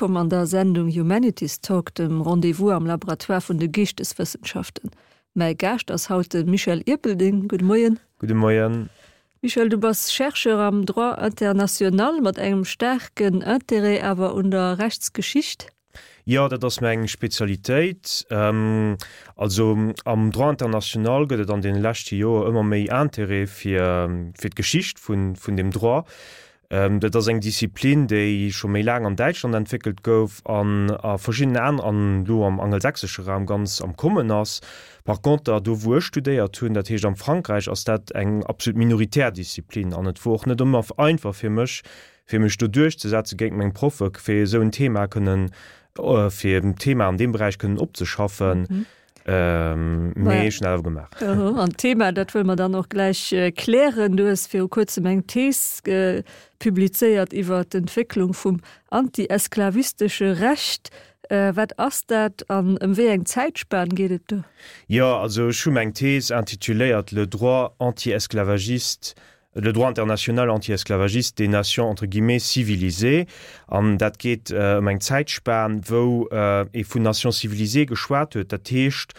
Wëllkomm an der Sendung Humanities Talk, dem Rendez-vous am Laboratoire vun de Geeschteswëssenschaften. Mäi Gaascht ass haut de Michel Ierpeldeng. Gudde Moien. Gudde Moien. Michel, du bass Chercheur am Droit international mat engem staarken Interêt awer un der Rechtsgeschicht. Jo, dat ass meng Spezialitéit. Also am Droit international gëtt et an deene leschte Joer ëmmer méi Interêt fir fir d'Geschicht vun vun deem Droit. Dat ass eng Disziplin, déi scho méi laang an Däitschland entwéckelt gouf an a verschiddenen aner an elo am angelsächsesche Raum ganz am Kommen ass. Par conter, do wou ech studéiert hunn, dat heescht am Frankräich, ass dat eng absolut minoritär Disziplin an et wor och net ëmmer einfach fir mech, fir mech do duerchzesetze géint meng Proffe fir esou en Thema kënnen, fir en Thema an deem Beräich kënnen opzeschaffen. Mee ech hunn dat awer gemaach. An d'Thema, dat wëlle mer dann och gläich klären. Du hues viru kuerzem eng Thees publizéiert iwwer d'Entwécklung vum anti-esklavistesche Recht. Wat ass dat an ëm wéi eng Zäitspan geet et do? Jo, also ech hu meng Thees intituléiert Le droit anti-esclavagiste le droit international anti-esclavagiste des nations entre guillemets civilisées, an dat geet ëm eng Zäitspan, wou ee vun Nations civilisées geschwat huet, dat heescht,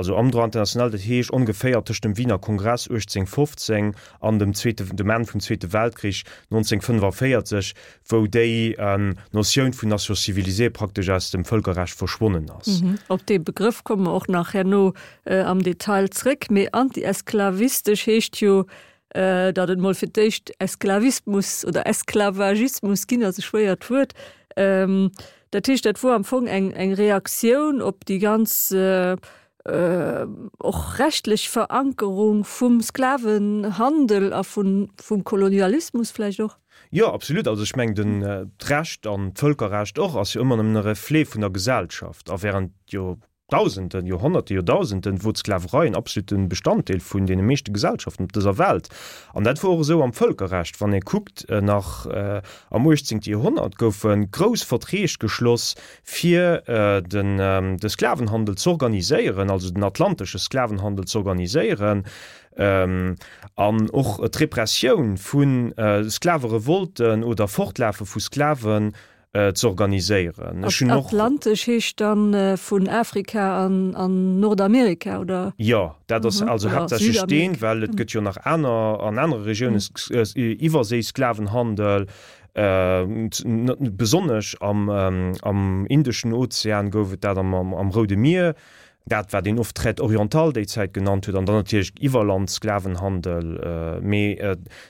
also am Droit international, dat heescht ongeféier tëscht dem Wiener Kongress 1815 an dem zweete, dem Enn vum Zweete Weltkrich 1945, wou déi Notioun vun Nations civilisées praktesch aus dem Vëlkerrecht verschwonnen ass. Op dee Begrëff komme mer och nach herno am Detail zréck. Mee anti-esklavistesch heescht jo, datt et mol fir d'éischt Esklavismus oder Esklavagismus ginn ass, e schwéiert Wuert. Dat heescht, dat wor am Fong eng eng Reaktioun op déi ganz och rechtlech Verankerung vum Sklavenhandel a vun vum Kolonialismus vläicht och? Jo, absolut. Also ech mengen, den d'Recht an d'Vëlkerrecht och ass jo ëmmer nëmmen e Reflet vun der Gesellschaft. A während jo Dausenden, Joerhonnerte, Joerdausenden wor d'Sklaverei en absolute Bestanddeel vun deene meeschte Gesellschaften op dëser Welt. An dat wor och esou am Vëlkerrecht. Wann ee kuckt, nach am uechtzéngte Joerhonnert goufe grouss Verträg geschloss, fir den de Sklavenhandel z'organiséieren, also den atlantesche Sklavenhandel z'organiséieren, an och d'Repressioun vu Sklaverevolten oder Fortlafe vu Sklaven ze organiséieren. Ech hunn och. Atlantesch heescht dann vun Afrika an an Nordamerika, oder? Jo, dat ass also haaptsächlech deen, well et gëtt jo nach aner, an anere Regiounen Iwwerséisklavenhandel. Besonnesch am am Indeschen Ozean gouf et dat, am am Roude Mier. Dat wat een oft Traite orientale déi Zäit genannt huet, an dann natierlech Iwwerlandsklavenhandel, mee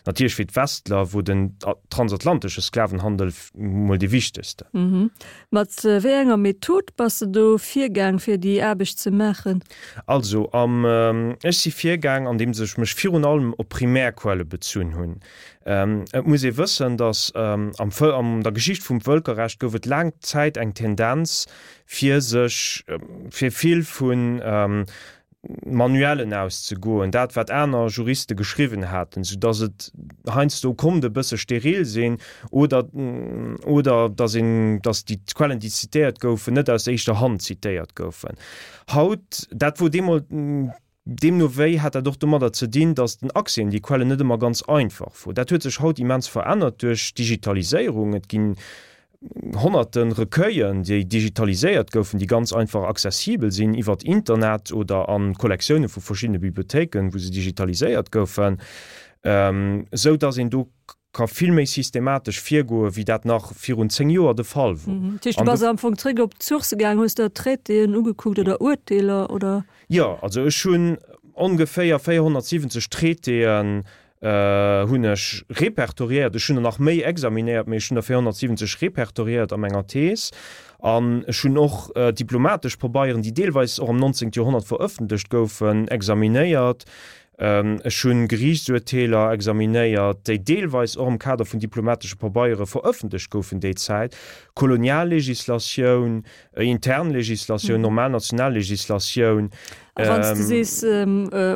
natierlech fir d'Westler wor den transatlantesche Sklavenhandel mol dee wichtegsten. Mat wéi enger Method bass de do virgaang fir déi Aarbecht ze maachen? Also am ech si virgaang andeems ech mech virun allem op Primärquelle bezunn hunn. Et muss ee wëssen, datt am an der Geschicht vum Vëlkerrecht gouf et laang Zäit eng Tendenz, fir sech fir vill vu Manuellen auszegoen, dat wat aner Juriste geschriwwen haten, soudatt et heiansdo konnt e bësse steril sinn oder oder datt een, datt déi Quellen, déi zitéiert goufen, net aus éischter Hand zitéiert goufen. Haut, dat wor deemol Deemno wéi hat dat och domadder ze dinn, datt den Accès un déi Quellen net ëmmer ganz einfach wor. Dat huet sech haut immens verännert duerch d'Digitaliséierung. Et ginn honnerte Recueillen, déi digitaliséiert goufen, déi ganz einfach accessibel sinn iwwert Internet oder a Kollektioune vu verschiddene Bibliothéiken, wou se digitaliséiert goufen, esou datt een do ka vill méi systematesch virgoen, wéi dat nach virun 10 Joer de Fall wor. Dat heescht, du bass am Fong zréck op d'Sourcë gaang, hues der Traitéen ugekuckt oder Urteeler, oder? Jo, also ech hunn ongeféier 470 Traitéen hunn ech repertoriéiert. Ech hunn der nach méi examinéiert, mee ech hunn der 470 repertoriéiert a menger Thees. An ech hunn och diplomatesch Pabeieren, déi deelweis och am 19. Joerhonnert verëffentlecht goufen, examinéiert. Ech hunn Geriichtsurteeler examinéiert, déi deelweis och am Kader vun diplomatesche Pabeiere verëffentlecht goufen déi Zäit, Koloniallegislatioun, intern Legislatioun, normal national Legislatioun. A wann s de sees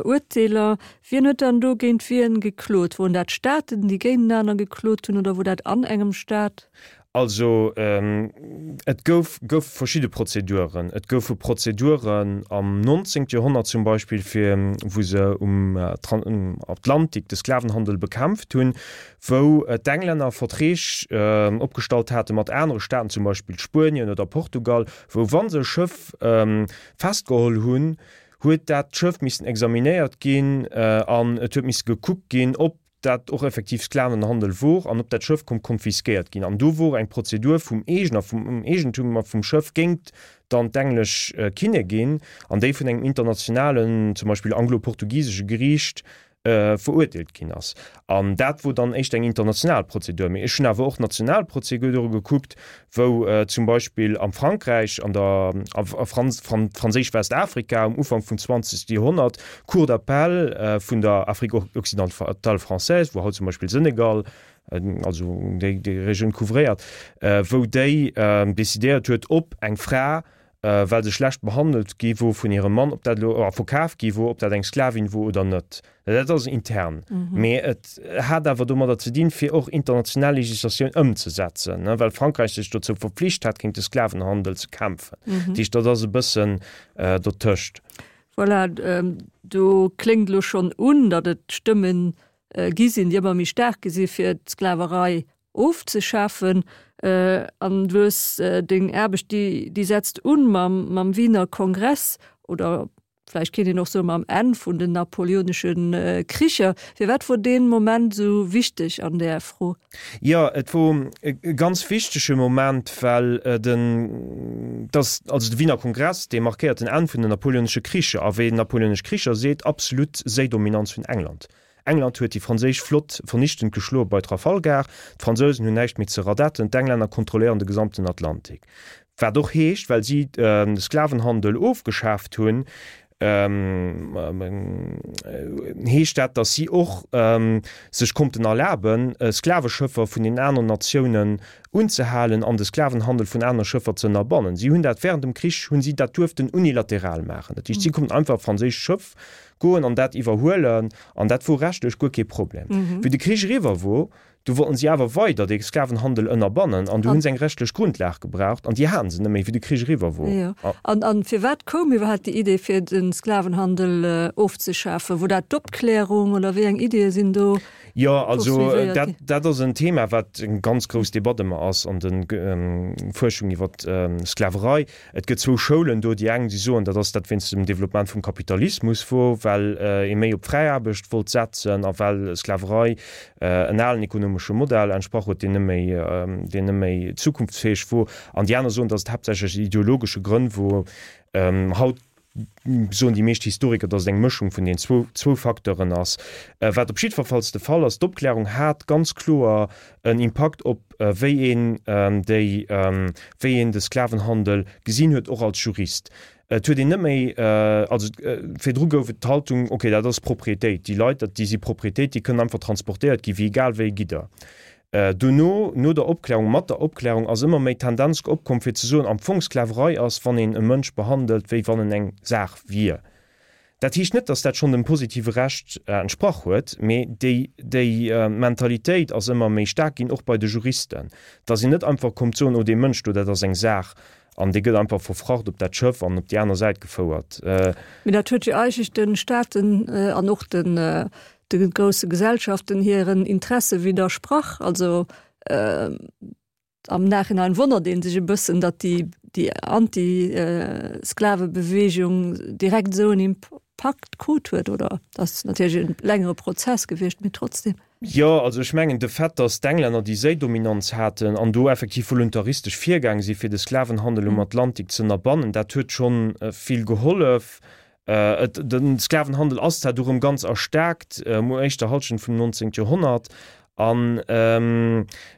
Urteeler, wien huet dann do géint wien geklot? Woren dat Staaten, déi géintenaner geklot hunn, oder wor dat an engem Staat? Also et gouf goufe verschidde Prozeduren. Et goufe Prozeduren am 19. Joerhonnert zum Beispill, fir wou se um Atlantik de Sklavenhandel bekämpft hunn, wou d'Englänner Verträg opgestallt hate mat anere Staaten, zum Beispill Spuenien oder Portugal, wou wa se e Schëff festgeholl hunn, huet dat Schëff missen examinéiert ginn an et huet misse gekuckt ginn, ob dat och effektiv Sklavenhandel wor an ob dat Schëff konnt konfiskéiert ginn. An do wor eng Prozedur vum Eegener, vum Eegentumer vum Schëff géint dann d'englesch Kinnegin an déi vun engem internationalen, zum Beispill anglo-portugisesche Geriicht verurteelt ginn ass. An dat wor dann éischter eng international Prozedur. Mee ech hunn awer och national Prozedure gekuckt, wou zum Beispill am Frankräich, an der a Franséisch Westafrika um Ufank vum 20. Joerhonnert d'Cour d'appel vun der Afrique occidentale française, wou haut zum Beispill Senegal, also déi Regioun couvréiert, wou déi decidéiert huet, ob eng Fra well se schlecht behandelt gi wor vun hirem Mann, ob dat elo, a verkaf gi wor, ob dat eng Sklavin wor oder net. Dat ass intern. Mee et hat awer domadder ze dinn, fir och international Legislatioun ëmzesetzen, well Frankräich sech dozou verpflicht hat, géint de Sklavenhandel ze kämpfen. Dat heescht, dat ass e bëssen dotëscht. Voilà, do kléngt elo schonn un, datt et Stëmme gi sinn, déi ëmmer méi staark gi si fir d'Sklaverei ofzeschafen. An du hues deng Aarbecht, déi, déi setzt un mam, mam Wiener Kongress oder vläicht kéint een och soe mam Enn vun den napoleonesche Kricher. Firwat wor dee Moment esou wichteg an där Fro? Jo, et wor e ganz wichtege Moment, well den, dass, also de Wiener Kongress, dee markéiert den Enn vun den napoleonesche Kricher a wéi napoleonesch Kricher seet absolut Séidominanz vun England. England huet déi franséisch Flott vernichtend geschloe bei Trafalgar, d'Fransousen hunn näischt méi ze radetten, d'Englänner kontrolléieren de gesamten Atlantik. Wat och heescht, well si de Sklavenhandel ofgeschaaft hunn, heescht dat, datt si och sech konnten erlaben, Sklaveschëffer vun den aneren Natiounen unzehalen an de Sklavenhandel vun anere Schëffer ze ënnerbannen. Si hunn dat während dem Krich hunn si dat duerften unilateral maachen. Dat heescht, si konnten einfach e franséischt Schëff goen an dat iwwerhuelen, an dat wor rechtlech guer kee Problem. Wéi de Krich eriwwer wor, du wollten si awer weider dee Sklavenhandel ënnerbannen an du hunn se eng rechtlech Grundlag gebraucht an déi haten se net méi, wéi de Krich eriwwer wor. Jo. An, an firwat koum iwwerhaapt déi Idee fir de Sklavenhandel ofzeschafen? Wor dat d'Opklärung oder wéi eng Ideeë sinn do Jo, also poursuivéiert dat, ginn? dat ass en Thema, wat eng ganz grouss Debatt ëmmer ass an de Fuerschung iwwer d'Sklaverei. Et gëtt zwou Schoulen do. Déi eng, déi soen, dat ass dat wéinst dem Développement vum Kapitalismus wor, well ee méi op fräi Aarbecht wollt setzen a well Sklaverei en alen ekonomesche Modell entsprach huet, deen net méi, deen net méi zukunftsfäeg wor. An déi aner soen, datt et haaptsächlech aus ideologesche Grënn wor. Haut soen déi meescht Historiker, datt et eng Mëschung vun den zwou zwou Facteuren ass. Wat op jiddwerfalls de Fall ass, d'Opklärung hat ganz kloer en Impakt op wéi een déi wéi een de Sklavenhandel gesinn huet, och als Jurist. Et huet een net méi, also virdru gouf et d'Haltung, okay, dat ass Proprietéit, déi Leit, dat déi si Proprietéit, déi kënnen einfach transportéiert gi wéi egal wéi Gidder. Dono, no der Opklärung, mat der Opklärung ass ëmmer méi d'Tendenz opkomm fir ze soen, am Fong Sklaverei ass, wann een e Mënsch behandelt, wéi wann en eng Saach wier. Dat heescht net, datt dat schonn dem positive Recht entsprach huet, mee déi, déi Mentalitéit ass ëmmer méi staark ginn, och bei de Juristen, datt een net einfach kommt soen, oh dee Mënsch do, dat ass eng Saach an dee gëtt einfach verfracht op dat Schëff an op déi aner Säit gefouert. Mee dat huet jo eigentlech de Staaten an och den, de grousse Gesellschaften hiren Interesse widdersprach. Also am Nachhinein wonnert ee sech e bëssen, datt déi, déi Anti-Sklavebewegung direkt esou en Impakt krut huet, oder? Dat ass natierlech e längere Prozess gewiescht, mee trotzdem. Jo, also ech mengen de Fait, datt d'Englänner déi Séidominanz haten an do effektiv voluntaristesch virgaang si fir de Sklavenhandel um Atlantik z'ënnerbannen, dat huet schonn vill gehollef. Et, de Sklavenhandel ass zwar du rëm ganz erstaarkt um éischter Halschent vum 19. Joerhonnert an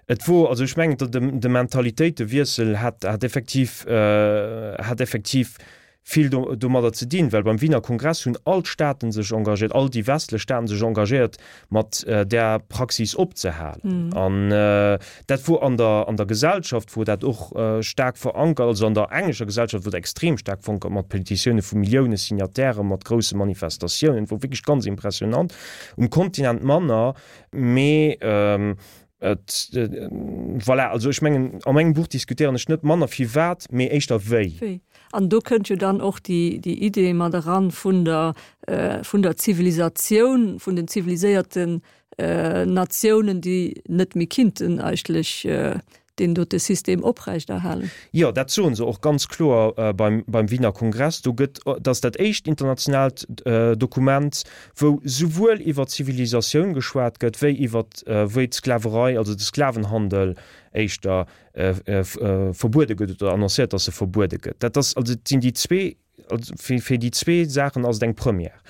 et wor, also ech mengen, de, de Mentalitéitewiessel hat, hat effektiv, hat effektiv vill do, domadder ze dinn, well beim Wiener Kongress hunn all d'Staaten sech engagéiert, all déi westlech Staaten sech engagéiert, mat där Praxis opzehalen. An dat wor an der, an der Gesellschaft wor dat och staark verankert, also an der englescher Gesellschaft wor dat extrem staark verankert, mat Petitioune vu Millioune Signatairen, mat grousse Manifestatiounen, et wor wierklech ganz impressionant. Um Kontinent manner, mee. Et, voilà, also ech mengen, a mengem Buch diskutéieren ech net manner firwat, mee éischter wéi. Wéi. An do kënnt jo dann och déi, déi Idee mat eran vun der, vun der Zivilisatioun, vun den ziviliséierten Natiounen, déi net méi kinnten eigentlech deen dote System oprechterhalen. Jo, dat soe se och ganz kloer beim, beim Wiener Kongress. Do gëtt, dat ass dat éischt internationaalt Dokument, wou souwuel iwwer Zivilisatioun geschwat gëtt, wéi iwwer, wéi d'Sklaverei, also de Sklavenhandel éischter verbuede gëtt oder annoncéiert, datt e verbuede gëtt. Dat ass also, et sinn déi zwee Also fir déi zwee Saachen ass et eng Première.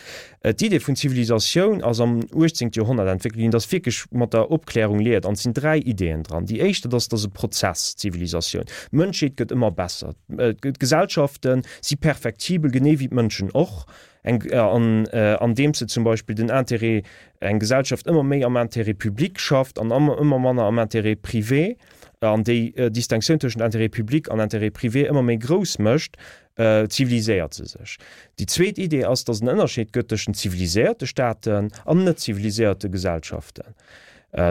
D'Idee vun Zivilisatioun ass am 18. Joerhonnert entwéckelt ginn, dat ass wierklech mat der Opklärung liiert an et sinn dräi Ideeën dran. Déi éischt, dat ass, dat ass e Prozess, d'Zivilisatioun. D'Mënschheet gëtt ëmmer besser. D'Gesellschafte si perfektibel, genee wéi d'Mënschen och, eng an andeems se zum Beispill den Intérêt, eng Gesellschaft ëmmer méi am Intérêt public schafft an ëmmer manner am Intérêt privé an déi Distinctioun tëschent Intérêt public an Intérêt privé ëmmer méi grouss mécht, ziviliséiert se sech. Déi zweet Idee ass, datt et en Ënnerscheed gëtt tëschent ziviliséierte Staaten an net ziviliséierte Gesellschaften.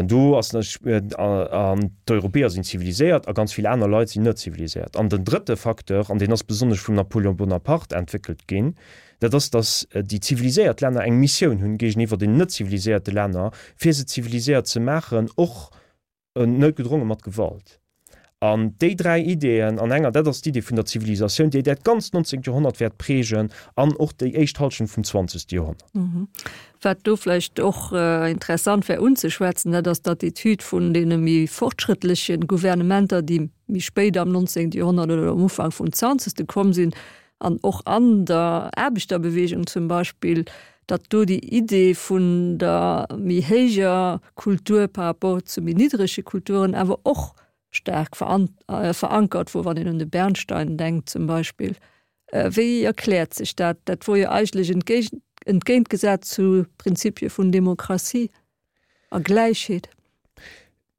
Do ass an d'Europäer sinn ziviliséiert a ganz vill aner Leit sinn net ziviliséiert. An den drëtte Facteur, an deen ass besonnesch vum Napoléon Bonaparte entwéckelt ginn, dat ass, datt déi ziviliséiert Länner eng Missioun hunn géigeniwwer den net ziviliséierte Länner, fir se ziviliséiert ze maachen, och noutgedronge mat Gewalt. An déi dräi Ideeën an enger, dat ass d'Idee vun der Zivilisatioun, déi dat ganzt 19. Joerhonnert wäert prägen an och déi éischt Hallschent vum 20. Joerhonnert. Wat do vläicht och interessant wär unzeschwätzen, dat ass d'Attitüd vun deene méi fortschrëttleche Gouvernementer, déi méi spéit am 19. Joerhonnert oder am Ufank vum 20. komm sinn, an och an der Aarbechterbewegung zum Beispill, datt do déi Idee vun der méi héijer Kultur par rapport zu méi niddrege Kulturen awer och staark verankert wor, wann een un de Bernstein denkt zum Beispill. Wéi erkläert sech dat? Dat wor jo eigentlech entgéintgesat zu Prinzipie vun Demokratie a Gläichheet.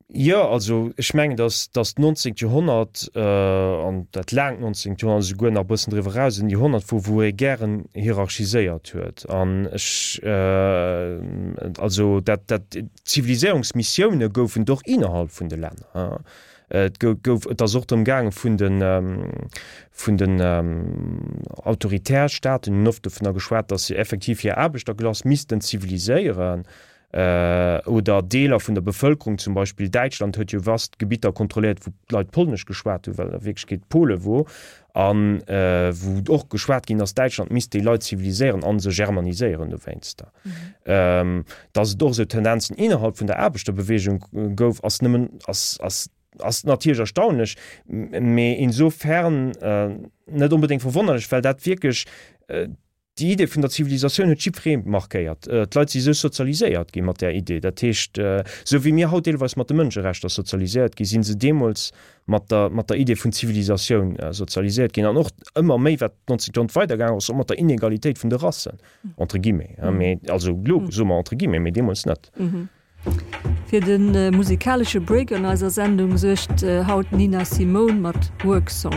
Jo, also ech mengen, datt datt d'nonzéngt Joerhonnert an dat laangt nonzéngt Joerhonnert, esouguer nach e bëssen driwwer eraus, en Joerhonnert wor, wou ee gären hierarchiséiert huet. An ech, also dat dat Ziviliséierungsmissioune goufen et och innerhalb vun de Länner. Et gouf, et ass och drëm gaange vun de vun den autoritär Staaten hunn oft dovunner geschwat, datt se effektiv hir Aarbechterklass missten ziviliséieren. Oder Deeler vun der Bevëlkerung, zum Beispill Däitschland huet jo vast Gebitter kontrolléiert, wou d'Leit Polnesch geschwat hunn, well a Wierklechkeet Pole wor, a wou och geschwat ginn ass, Däitschland misst déi Leit ziviliséieren a se germaniséieren dowéinster. Datt et och esou Tendenzen innerhalb vun der Aarbechterbeweegung gouf, ass nëmmen, ass, ass, ass natierlech erstaunlech, mee insofern net onbedéngt verwonnerlech, well dat wierklech Déi Idee vun der Zivilisatioun huet jiddweree markéiert. D'Leit si esou sozialiséiert gi mat där Idee. Dat heescht, esou wéi mir haut deelweis mat de Mënscherechter sozialiséiert gi sinn se deemools mat der, mat der Idee vun Zivilisatioun sozialiséiert ginn. An och ëmmer méi, wat d'nonzéngt Joerhonnert weidergaangen ass, och mat der Inegalitéit vun de Rassen, entre guillemets, mee also elo soe mer entre guillemets, mee deemools net. Fir de musikalesche Break an eiser Sendung suergt haut d'Nina Simone mat Work Song.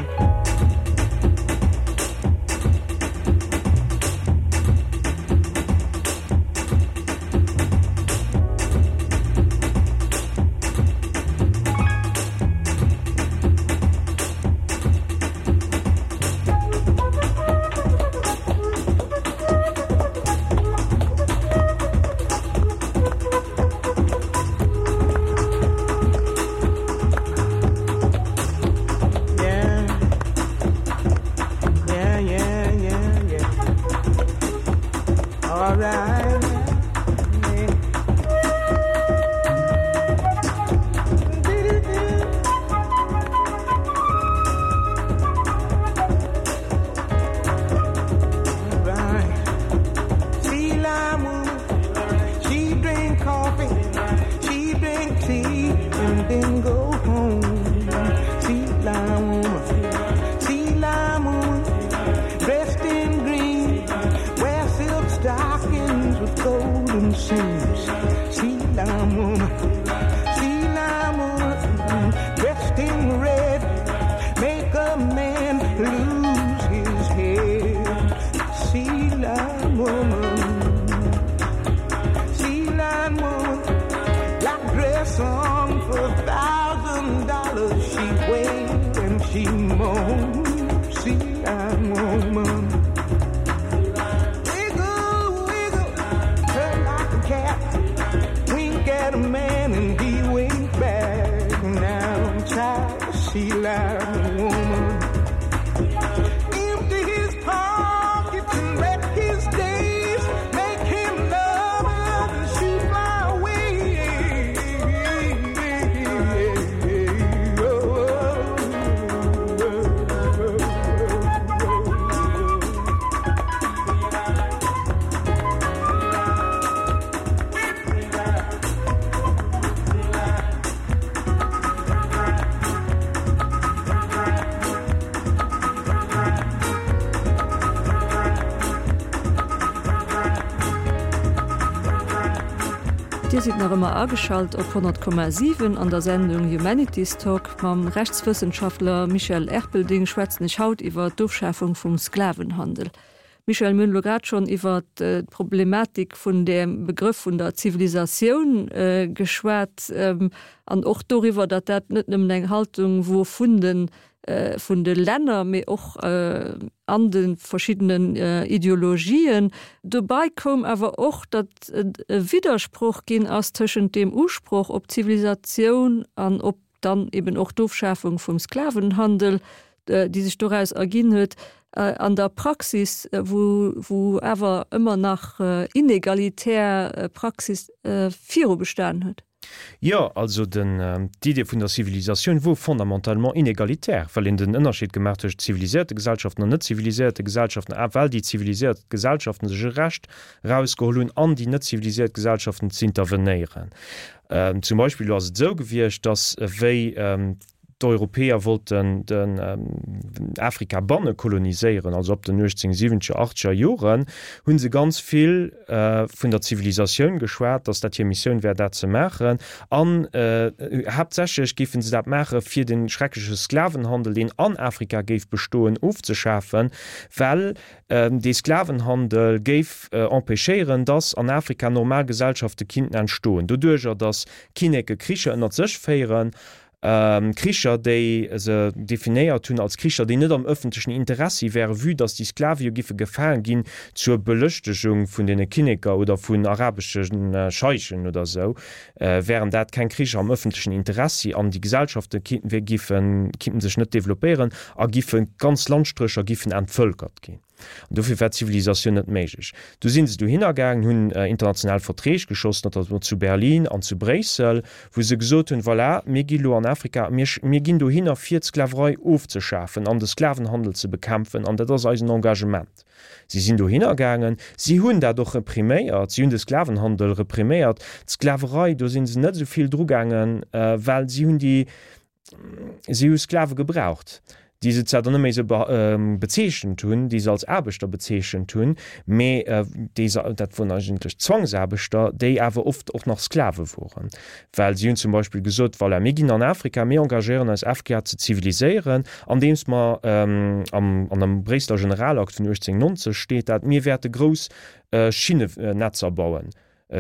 at a man and he winked back. Now, child, she like a woman. Empty his pockets and wreck his days. Make him love her and she fly away. Dir sidd nach ëmmer ageschalt op 100,7 an der Sendung Humanities Talk. Mam Rechtswëssenschaftler Michel Erpelding schwätzen ech haut iwwer d'Ofschafung vum Sklavenhandel. Michèle, mir hunn elo grad schonn iwwer d'Problematik vun dem Begrëff vun der Zivilisatioun geschwat an och doriwwer, datt dat net nëmmen eng Haltung wor vun de vun de Länner, mee och an de verschiddenen Ideologien. Dobei koum awer och, datt et e Widdersproch ginn ass tëschent deem Usproch op Zivilisatioun an op dann eben och d'Ofschafung vum Sklavenhandel, déi sech doraus erginn huet, an der Praxis, wou wou awer ëmmer nach inegalitär Praxis viru bestan huet. Jo, also den, d'Idee vun der Zivilisatioun wor fondamentalement inegalitär, well een den Ënnerscheed gemaach tëscht ziviliséierte Gesellschaften an net ziviliséierte Gesellschaften, a well déi ziviliséiert Gesellschaften sech e Recht erausgeholl hunn, an déi net ziviliséiert Gesellschaften z'intervenéieren. Zum Beispill elo ass et esou gewiescht, datt wéi d'Europäer wollten den Afrika banne koloniséieren, also ab den 1870er, achtzeger Joren, hu se ganz vill vun der Zivilisatioun geschwat, datt dat hir Missioun wär, dat ze maachen. An haaptsächlech géife se dat maache fir de schreckleche Sklavenhandel, deen an Afrika géif bestoen, ofzeschafen, well Dee Sklavenhandel géif empêchéieren, dass an Afrika normal Gesellschafte kinnten entstoen, doduerjer dass Kinneke Kricher ënnert sech féieren, Kricher déi se definéiert hunn als Kricher déi net am ëffentlechen Interessi wären, vue dass déi Sklave jo giffe gefaange ginn zur Belëschtegung vun deene Kinneker oder vun arabesche Scheichen oder esou, wären dat keng Kricher am ëffentlechen Interessi an déi Gesellschafte giffen, kinnten sech net developpéieren a giffe ganz Landstrécher giffen entvölkert ginn. An dofir war d'Zivilisatioun net méiglech. Du si se dohinner gaangen, hunn international Verträg geschoss, notamment zu Berlin an zu Bréissel, wou se gesot hunn, voilà, mir gi lo an Afrika, mir, mir ginn dohinner fir d'Sklaverei ofzeschafen an de Sklavenhandel ze bekämpfen an dat ass eisen Engagement. Si sinn dohinner gaangen, si hunn dat och repriméiert, si hunn de Sklavenhandel repriméiert. D'Sklaverei, do si se net esou vill drugaangen, well si hunn déi, si hu Sklave gebraucht, déi se zwar dann net méi esou bezeechent hunn, déi se als Aarbechter bezeechent hunn, mee déi se, dat woren eigentlech Zwangsaarbechter, déi awer oft och nach Sklave woren. Well si hunn zum Beispill gesot, Voilà, mir ginn an Afrika, mir engagéieren eis, Afrika ze ziviliséieren, andeems mer, am, an am Bréisseler Generalakt vun 1890 steet dat, mir wäerte grouss Schinnenetzer bauen,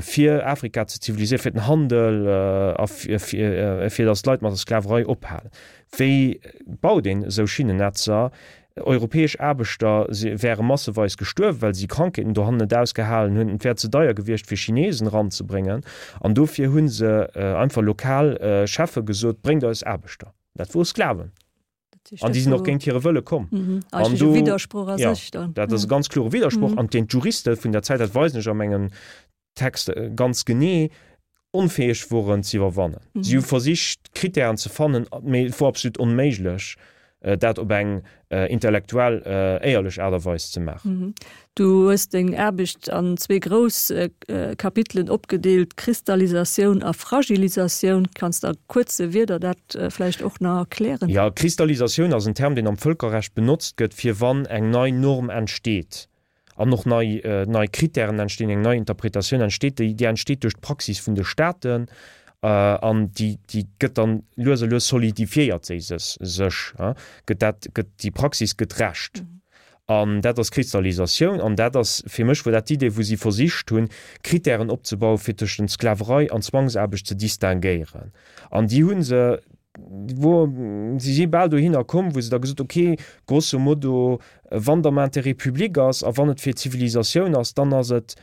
fir Afrika ze ziviliséieren, fir den Handel a fir datt d'Leit mat der Sklaverei ophalen. Wéi baut een esou Schinnenetzer? Europäesch Aarbechter wäre masseweis gestuerwen, well si Krankheeten dohannen net ausgehalen hunn. Et wär ze deier gewiescht, fir Chinesen eranzebréngen. An dofir hu se einfach lokal Cheffe gesot, Bréngt eis Aarbechter. Dat wore Sklaven. An déi sinn och géint hire Wëlle komm. An do, ja, dat ass e ganz klore Widdersproch, an deen d'Juriste vun der Zäit, dat weisen ech a mengem Text ganz genee, onfäeg woren ze iwwerwannen. Si hu versicht, Krittären ze fannen, mee et wor absolut onméiglech, dat op eng intellektuell éierlech Aart a Weis ze maachen. Du hues deng Aarbecht an zwee grouss Kapitelen opgedeelt, Kristallisatioun a Fragilisatioun. Kanns de a kuerze Wierder dat vläicht och nach erklären? Jo, Kristallisatioun ass en Term, deen am Vëlkerrecht benotzt gëtt, fir wann eng nei Norm entsteet. an och nei, nei Kritären entstinn, eng nei Interpretatioun entsteet, déi, déi entsteet duerch d'Praxis vun de Staaten an déi, déi gëtt dann lues a lues solidifiéiert se sech, gëtt dat, gëtt déi Praxis gëtt Recht. An dat ass Kristallisatioun an dat ass, fir mech wor dat d'Idee, wou si versicht hunn, Kritären opzebauen, fir tëschent Sklaverei an Zwangsaarbecht ze distinguéieren. An déi hu se wou si si bal dohinner komm, wou se da gesot ok, grosso modo, wann et am Intérêt public ass a wann et fir d'Zivilisatioun ass, dann ass et.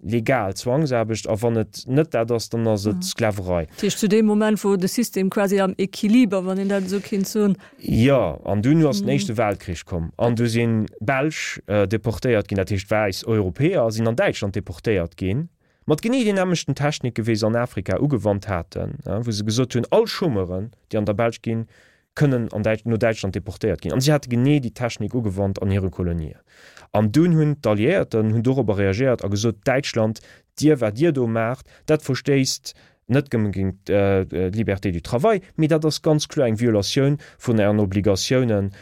Legal Zwangsaarbecht, a wann et net dat ass, dann ass et Sklaverei. Dat heescht zu deem Moment, wou de System quasi am Equiliber, wann een dat esou kéint soen. Jo, an dunn ass den Éischte Weltkrich komm an du si Belsch deportéiert ginn, dat heescht wäiss Europäer sinn an Däitschland deportéiert ginn, mat genee den nämmlechten Technike wéi se an Afrika ugewannt haten, wou se gesot hunn, all Chômeuren, déi an der Belsch ginn, kënnen an Däitsch, no Däitschland deportéiert ginn. An si hate genee déi Technik ugewannt an hire Kolonien. An dunn hunn d'Alliéierten hunn dorobber reagéiert a gesot, Däitschland, dir, wat dir do maacht, dat verstéisst net nëmme géint d'Liberté du travail, mee dat ass ganz kloer eng Violatioun vun ären Obligatiounen,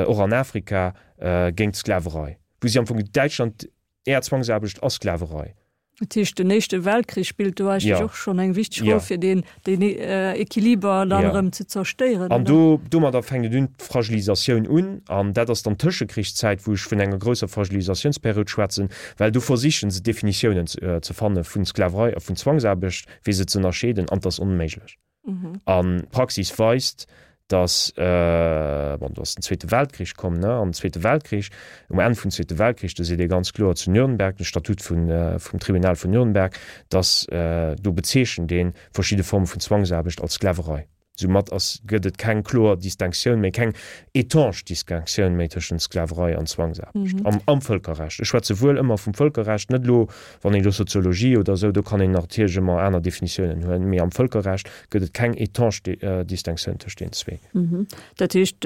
och an Afrika, géint d'Sklaverei. Wou si am Fong Däitschland, Är Zwangsaarbecht ass Sklaverei. Dat heescht, den Éischte Weltkrich spillt do eigentlech och schonn eng wichteg Roll, fir deen Equiliber dann erëm ze zerstéieren, oder? An do, domadder fänkt et un, d'Fragilisatioun un. An dat ass dann d'Tëschekrichszäit, wou ech vun enger grousser Fragilisatiounsperiod schwätzen, well do versichen se Definitiounen ze fanne vu Sklaverei a vun Zwangsaarbecht, fir se ze ënnerscheeden, an 't ass onméiglech. An d'Praxis weist, datt, bon, do ass den Zweete Weltkrich komm, ne, an den Zweete Weltkrich, um Enn vum Zweete Weltkrich, do seet ee ganz kloer zu Nürnberg, de Statut vun, vum Tribunal vun Nürnberg, datt do bezeechent ee verschidde Forme vun Zwangsaarbecht als Sklaverei. Soumat ass, gëtt et keng kloer Distinctioun méi, keng étanche Distinctioun méi tëschent Sklaverei an Zwangsaarbecht am, am Vëlkerrecht. Ech schwätze wuel ëmmer vum Vëlkerrecht, net elo Wann een elo Soziologie oder esou, do kann een natierlech ëmmer aner Definitiounen huelen, mee am Vëlkerrecht gëtt et keng étanche Distinctioun tëscht deenen zwee. Dat heescht,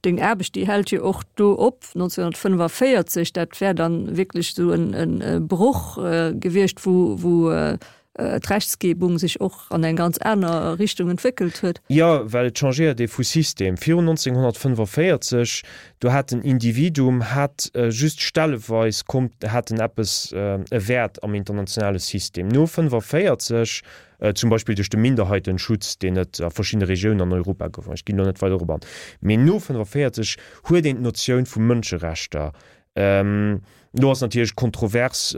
deng Aarbecht, déi hält jo och do op, 1945, dat wär dann wierklech esou e Broch gewiescht, wou d'Rechtsgebung sech och an eng ganz aner Richtung entwéckelt huet. Jo, well et changéiert ee vu System. Virun 1945, do hat den Individuum hat just stelleweis konnt, hat en eppes, e Wäert am internationale System. No 45, zum Beispill duerch de Minderheitenschutz, deen et a verschiddene Regiounen an Europa gouf, ech ginn elo net weider dorop an, mee no 45 huet een d'Notioun vu Mënscherechter Do ass natierlech kontrovers,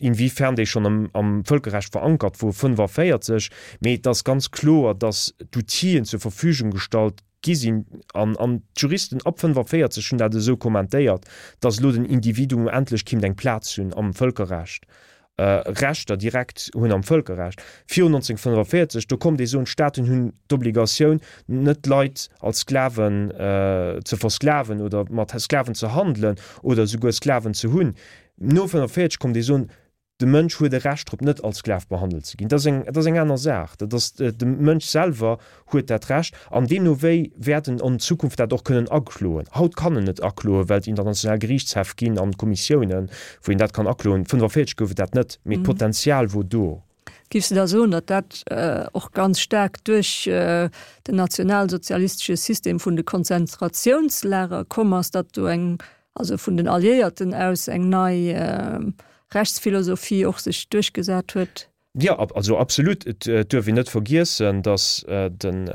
inwiefern déi schonn am Vëlkerrecht verankert wor, 45, mee et ass ganz kloer, datt d'Outill'en zur Verfügung gestallt gi sinn, an d'Juristen ab 45 hunn dat esou kommentéiert, datt elo den Individuum endlech kéint eng Plaz hunn am Vëlkerrecht. Rechter direkt hunn am Vëlkerrecht. Virun 1945, do konnt ee soen, d'Staaten hunn d'Obligatioun, net d'Leit als Sklaven ze versklaven oder mat Sklaven ze handelen oder esouguer Sklaven ze hunn. No 1945 konnt ee soen, de Mënsch huet e Recht drop, net als Sklav behandelt ze ginn. Dat ass eng, dat ass eng aner Saach. Dat ass, de Mënsch selwer huet dat Recht an deemno wéi wäert en an Zukunft dat och kënnen akloen. Haut kann en net akloen, well et international Geriichtshäff ginn an Kommissiounen, wou een dat kann akloen. 45 gouf et dat net, mee d'Potenzial wor do. Giffs de da soen, datt dat och ganz staark duerch den nationalsozialistesche System vun de Konzentratiounslager komm ass, datt do eng, also vun den Alliéierten aus eng nei Rechtsphilosophie och sech duerchgesat huet? Jo, also absolut. Et duerf een net vergiessen, datt den,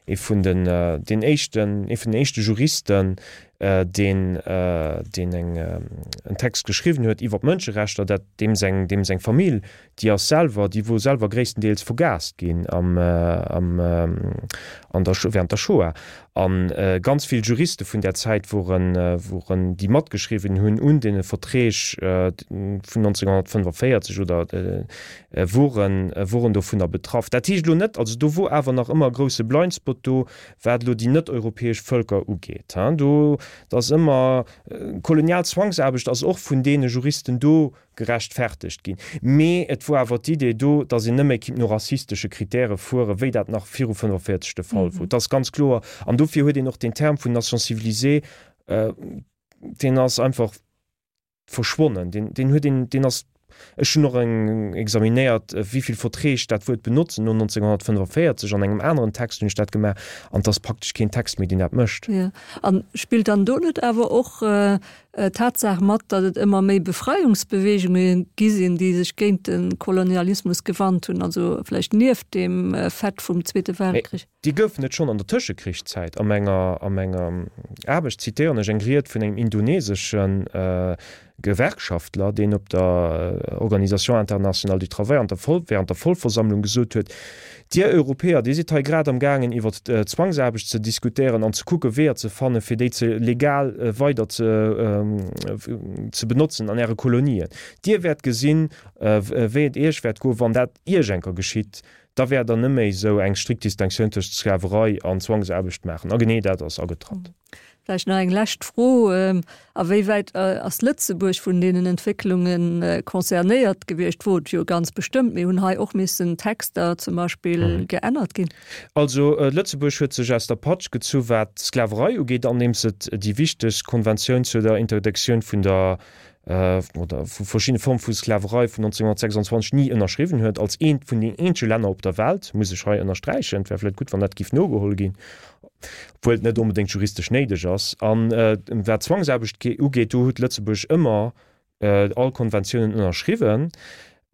ee vun den, deen éischten, ee vun den éischte Juristen, deen, deen eng, en Text geschriwwen huet iwwer d'Mënscherechter, dat deem seng, deem seng Famill, déi ass selwer, déi wor selwer gréisstendeels vergaast ginn am, am, an der, während der Shoah. A ganz vill Juriste vun där Zäit woren, woren, déi matgeschriwwen hunn un deene Verträg vun 1945 oder woren, woren dovunner betraff. Dat heescht elo net, also do wor awer nach ëmmer e grousse Blindspot do, wat elo déi net-europäesch Vëlker ugeet. Do, et ass ëmmer, kolonial Zwangsaarbecht ass och vun deene Juristen do gerechtfertegt ginn. Mee et wor awer d'Idee do, datt een net méi kinnt no rassistesche Kritäre fueren, wéi dat nach viru 45 de Fall wor. Dat ass ganz kloer. An dofir huet een och deen Term vun Nation civilisée, deen ass einfach verschwonnen. Deen, deen huet een, deen ass, ech hunn och eng examinéiert, wéi vill Verträg dat Wuert benotzen no 1945. An engem aneren Text hunn ech dat gemaach, an et ass praktesch keen Text méi, deen dat mécht. Jo. A spillt dann do net awer och d'Tatsaach mat, datt et ëmmer méi Befreiungsbeweegunge gi sinn, déi sech géint de Kolonialismus gewannt hunn, also vläicht nieft deem Fait vum Zweete Weltkrich. Déi goufen et schonn an der Tëschekrichszäit. A menger a menger Aarbecht zitéieren ech eng Ried vun engem indonesesche Gewerkschaftler, deen op der Organisation internationale du travail an der Voll während der Vollversammlung gesot huet, Dir Europäer, Dir sidd hei grad am gaangen iwwert d'Zwangsaarbecht ze diskutéieren an ze kucke Weeër ze fannen, fir déi ze legal weider ze. ze benotzen an Äre Kolonien. Dir wäert gesinn, wéi et Iech wäert goen, wann dat Iech enker geschitt. Da wäert Der net méi esou eng strikt Distinctioun tëscht Sklaverei an Zwangsaarbecht maachen. A genee dat ass agetratt. Vläicht nach eng lescht Fro, A wéi wäit ass Lëtzebuerg vun deenen Entwécklunge concernéiert gewiescht? Wor et jo ganz bestëmmt, mee hunn hei och missen Texter zum Beispill geännert ginn? Also Lëtzebuerg huet sech aus der Patsch gezu wat d'Sklaverei ugeet, andeems et déi wichteg Konventioun zu der Interdiktioun vun der oder vu verschiddene Forme vu Sklaverei vun 1926 ni ënnerschriwwen huet, als eent vun den eenzege Länner op der Welt, muss ech hei ënnersträichen. Et wär vläicht gutt, wann dat géif nogeholl ginn, obwuel et net onbedéngt juristesch néideg ass. A wat d'Zwangsaarbecht ugeet, do huet Lëtzebuerg ëmmer all Konventiounen ënnerschriwwen.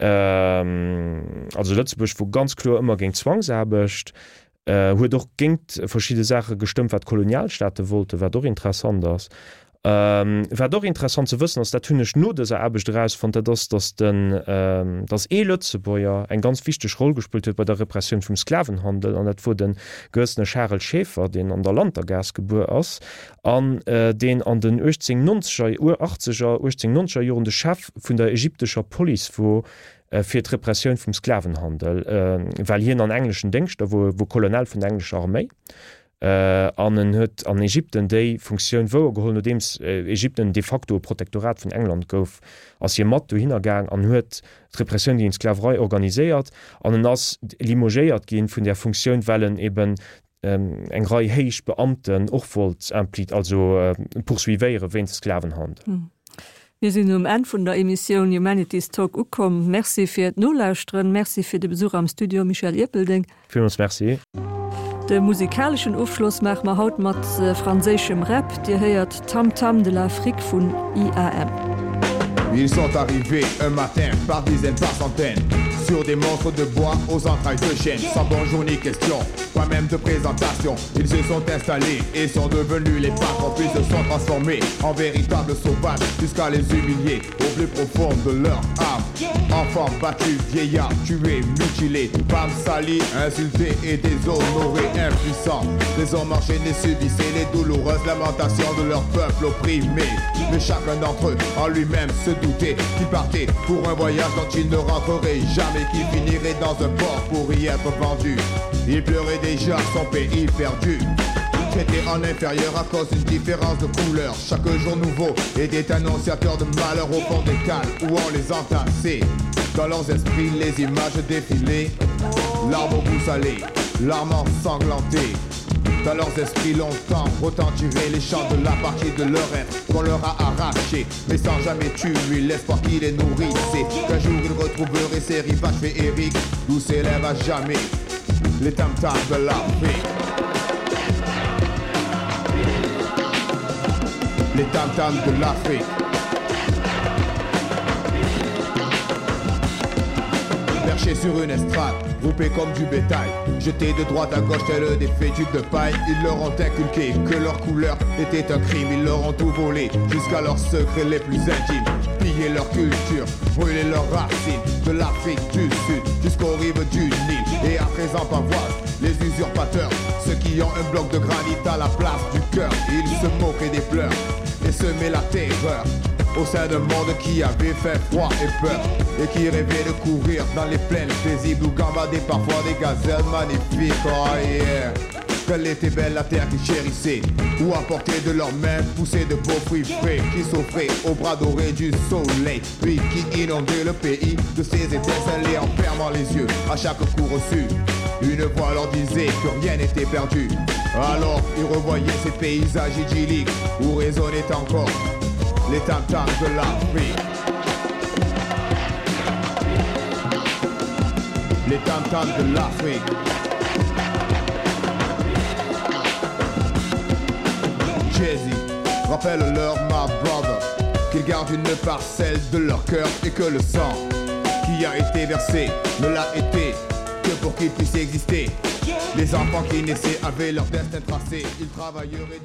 Also Lëtzebuerg wor ganz kloer ëmmer géint Zwangsaarbecht, huet och géint verschidde Saache gestëmmt, wat d'Kolonialstaate wollten, wat och interessant ass. Wat och interessant ze wëssen ass, dat hunn ech no dëser Aarbecht erausfonnt, dat ass, datt den, datt ee Lëtzebuerger eng ganz wichteg Roll gespillt huet bei der Repressioun vum Sklavenhandel, an dat wor de gewëssene Charel Schaeffer, deen an der Lantergaass gebuer ass an deen an den 1890er, achtzeger, 1890er Joren de Chef vun der ägyptescher Police wor fir d'Repressioun vum Sklavenhandel, well hien an engleschen Déngschter wor, wor Colonel vun der englescher Arméi. An en huet an Ägypten déi Funktioun wouergeholl. Nodeems Ägypten de facto e Protektorat vun England gouf, ass hie mat dohinner gaang an huet d'Repressioun géint d'Sklaverei organiséiert. An en ass limogéiert gi vun där Funktioun, well en eben eng Rei héich Beamten och wollt impli-, also poursuivéiere wéinst Sklavenhandel. Mir sinn um Enn vun der Emissioun Humanities Talk ukomm. Merci fir d'Nolauschteren. Merci fir de Besuch am Studio, Michel Ierpeldeng. Villmools Merci. De musikaleschen Ofschloss maache mer haut mat franséischem Rap. Dir héiert Tam Tam de l'Afrique vun IAM. Ils sont arrivés un matin par dizaines par centaines Sur des monstres de bois aux entrailles de chêne Sans bonjour ni question, pas même de présentation Ils se sont installés et sont devenus les patrons Puis se sont transformés en véritables sauvages Jusqu'à les humilier au plus profond de leur âme Enfants battus, vieillards, tués, mutilés Femmes salies, insultées et déshonorées, impuissants Des hommes enchaînés subissaient les douloureuses lamentations de leur peuple opprimé Mais chacun d'entre eux en lui-même se doutait Qu'il partait pour un voyage dont il ne rentrerait jamais Qu'il finirait dans un port pour y être vendu Il pleurait déjà son pays perdu Traité en inférieur à cause d'une différence de couleur Chaque jour nouveau était annonciateur de malheur au fond des cales Où on les entassait Dans leurs esprits les images défilaient L'arme au goût salé, l'arme ensanglantée Dans leurs esprits longtemps retentiraient les chants de la partie de leur être Qu'on leur a arraché, mais sans jamais tuer l'espoir qui les nourrissait Qu'un jour ils retrouveraient ces rivages féeriques D'où s'élève à jamais les tam-tams de l'Afrique Les tam-tams de l'Afrique Perché sur une estrade, groupé comme du bétail Jeté de droite à gauche tel des fétus de paille Ils leur ont inculqué que leur couleur était un crime Ils leur ont tout volé jusqu'à leurs secrets les plus intimes Piller leur culture, brûler leurs racines De l'Afrique du Sud jusqu'aux rives du Nil Et à présent pavoisent les usurpateurs Ceux qui ont un bloc de granit à la place du cœur Ils se moquaient des pleurs et semaient la terreur Au sein d'un monde qui avait fait froid et peur Et qui rêvait de courir dans les plaines paisibles Où gambadaient parfois des gazelles magnifiques Oh yeah Qu'elle était belle la terre qu'ils chérissaient Ou apporter de leurs mains pousser de beaux fruits frais Qui s'offraient aux bras dorés du soleil Puis qui inondaient le pays de ses étincelles en fermant les yeux à chaque coup reçu Une voix leur disait que rien n'était perdu Alors ils revoyaient ces paysages idylliques Où résonnaient encore les tam-tams de l'Afrique Les tam-tams de l'Afrique Jay-Z, rappelle-leur ma brother Qu'ils gardent une parcelle de leur cœur et que le sang qui a été versé ne l'a été que pour qu'il puisse exister. Les enfants qui naissaient avaient leur destin tracé, ils travailleraient.